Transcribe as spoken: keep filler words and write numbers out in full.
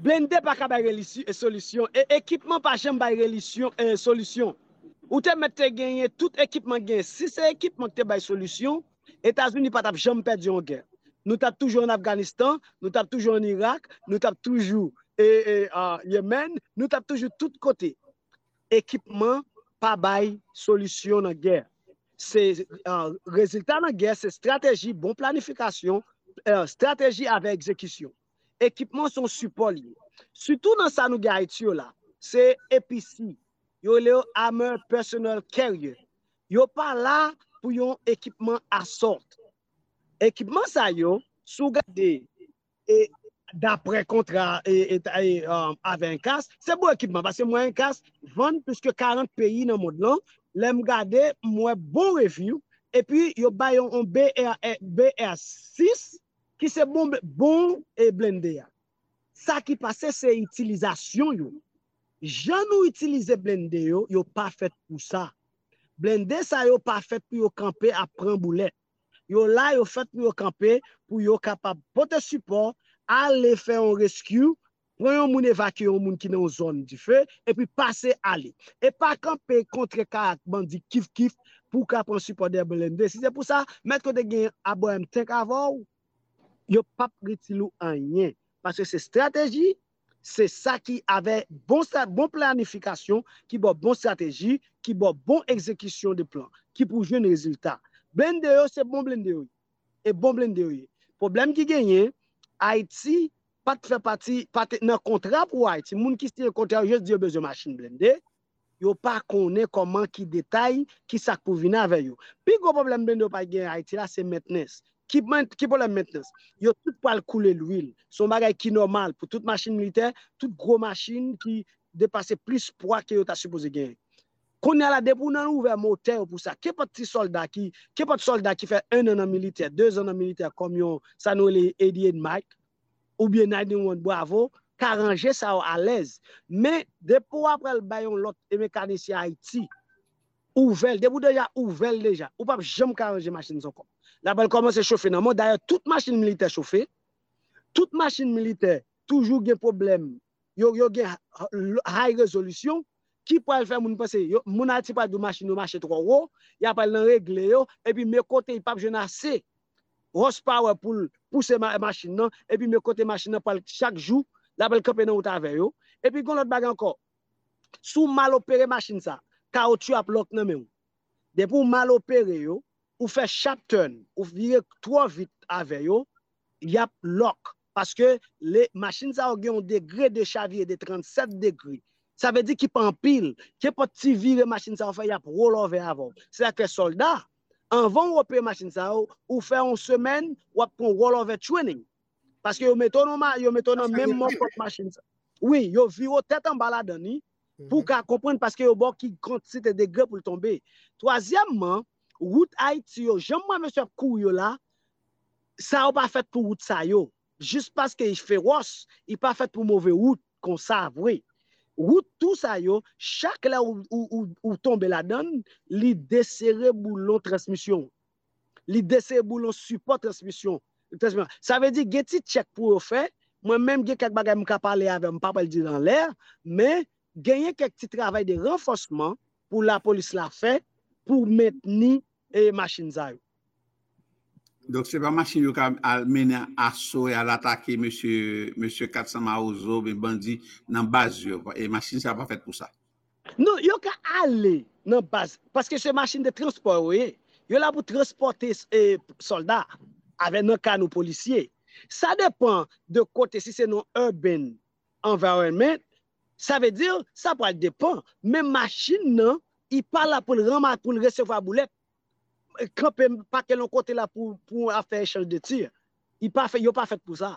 Blende pa ka bay solisyon, e ekipman pa janm bay solisyon. Ou te mèt te genyen tout ekipman genyen. Si se ekipman ki te bay solisyon, Etazini pa t ap janm pèdi yon gè. Nou t ap toujou an Afganistan, nou t ap toujou an Irak, nou t ap toujou e, e, a, Yemen, nou t ap toujou tout kote. Ekipman pa bay solisyon nan gè. Se, a, rezilta nan gè, se estrateji, bon planifikasyon, e, estrateji avè egzekisyon. Ekipman se yon sipò li ye. Sitou nan sa nou gen Ayiti yo la, se A P C. Yo rele yo Armored Personnel Carrier. Yo pa la pou yon ekipman assault. Ekipman sa yo, si w gade, e, daprè kontra e, e, e, um, avè enkas, se bon ekipman, paske mwen enkas vann plis ke karant peyi nan mond lan. Lè m gade, m wè bon review, epi yo bay yon, yon B R, B R sis ki se bon, bon e blende a. Sa ki pase se itilizasyon yo. Jan nou itilize blende yo, yo pa fèt pou sa. Blende sa yo pa fèt pou yo kanpe ap pran boulèt. Yo la, yo fèt pou yo kanpe, pou yo kapab pote sipò, ale fè yon rescue, pran yon moun, evakye yon moun ki nan yon zòn dife, epi pase ale. E pa kanpe kontre kay ak bandi kif kif pou w ka pran sipò dèyè blende. Si se pou sa, mèt kote gen Abraham Tank avè w, yo p ap itil ou anyen. Paske se estrateji, se sa ki avè bon, bon planifikasyon, ki ba w bon estrateji, ki ba w bon egzekisyon de plan, ki pou jwenn rezilta. Blende yo, se bon blende yo ye. E bon blende yo ye. Pwoblèm ki genyen, Ayiti pa t fè pati, pa t nan kontra pou Ayiti. Moun ki siyen kontra yo jis di yo bezwen machin blende. Yo pa konnen kòman ki detay, ki sa k pou vin avè yo. Pi gwo pwoblèm blende yo pa gen Ayiti la, se mentnans. Ki, ki pwoblèm mentnans? Yo tout pral koule lwil. Se yon bagay ki nòmal pou tout machin militè, tout gwo machin ki depase plis pwa ke yo ta sipoze genyen. Kounye a la, depi w nan ouvè motè yo pou sa, kenpòt ti sòlda ki, kenpòt sòlda ki fè en an nan militè, de zan nan militè, kòm yon, sa nou rele eighty-eight Mike, oubyen ninety-one Bravo, ka ranje sa yo alèz. Men, depi w apral bay yon lòt e mekanisyen Ayiti, ouvè l, depi w deja ouvè l deja, ou p ap janm ka ranje machin sa ankò. L apral kòmanse chofe nan mò. Dayè, tout machin militè chofe, tout machin militè toujou gen pwoblèm, yo, yo gen high resolution, ki pral fè moun panse, yo, moun Ayiti pral di w machin yo mache twò wo, y apral nan regle yo, epi men kote y p ap jwenn ase horsepower pou l pouse machin nan, epi men kote machin nan pral chak jou, l apral kanpe nan wout avè yo. Epi gen lòt bagay ankò, si w mal opere machin sa, kawotchou ap lòk nan men w. Depi w mal opere yo, ou fè sharp turn, ou vire twò vit avè yo, y ap lòk. Paske le, machin sa yo gen yon degre de chavire de trannsèt degre. Sa vle di ki pa anpil. Kenpòt ti vire machin sa yo fè, y ap rolove avè w. Se sa k fè sòlda, anvan w opere machin sa yo, ou fè yon semèn, w ap pran rolove training. Paske yo mete w nan, yo mete w nan menm mòfòt machin sa. Wi, yo vire w tèt anba ladan li, pou w ka konprann, paske yo ba w ki kantite degre pou l tonbe. Twazyèmman, wout Ayiti yo, jan m wè mesye ap kouri yo la, sa yo pa fèt pou wout sa yo. Jis paske y fewòs, y pa fèt pou move wout konsa vre. Wout tou sa yo, chak lè ou, ou, ou, ou tonbe ladan l, li desere boulon transmisyon w. Li desere boulon sipò transmisyon. Transmisyon. Sa vle di, gen ti tchèk pou yo fè. Mwen menm, gen kèk bagay m ka pale avè w, m pa pral di l anlè, men genyen kèk ti travay de ranfòsman pou lapolis la fè pou mentni e machin sa yo. Donk, se pa machin yo ka al mennen aso e al atake mesye, mesye Kat San Mawozo, oubyen bandi nan baz yo. E machin sa pa fèt pou sa. Non, yo ka ale nan baz, paske se machin de transpò yo ye. Yo la pou transpòte e, sòlda avè nan kano polisye. Sa depan de kote, si se nan urban environment, sa vle di, sa pral depan. Men machin nan, li pa la pou l ranma, pou l resevwa boulèt. Kanpe, pake l yon kote la pou, pou afè echanj de tir. Li pa fè, yo pa fèt pou sa.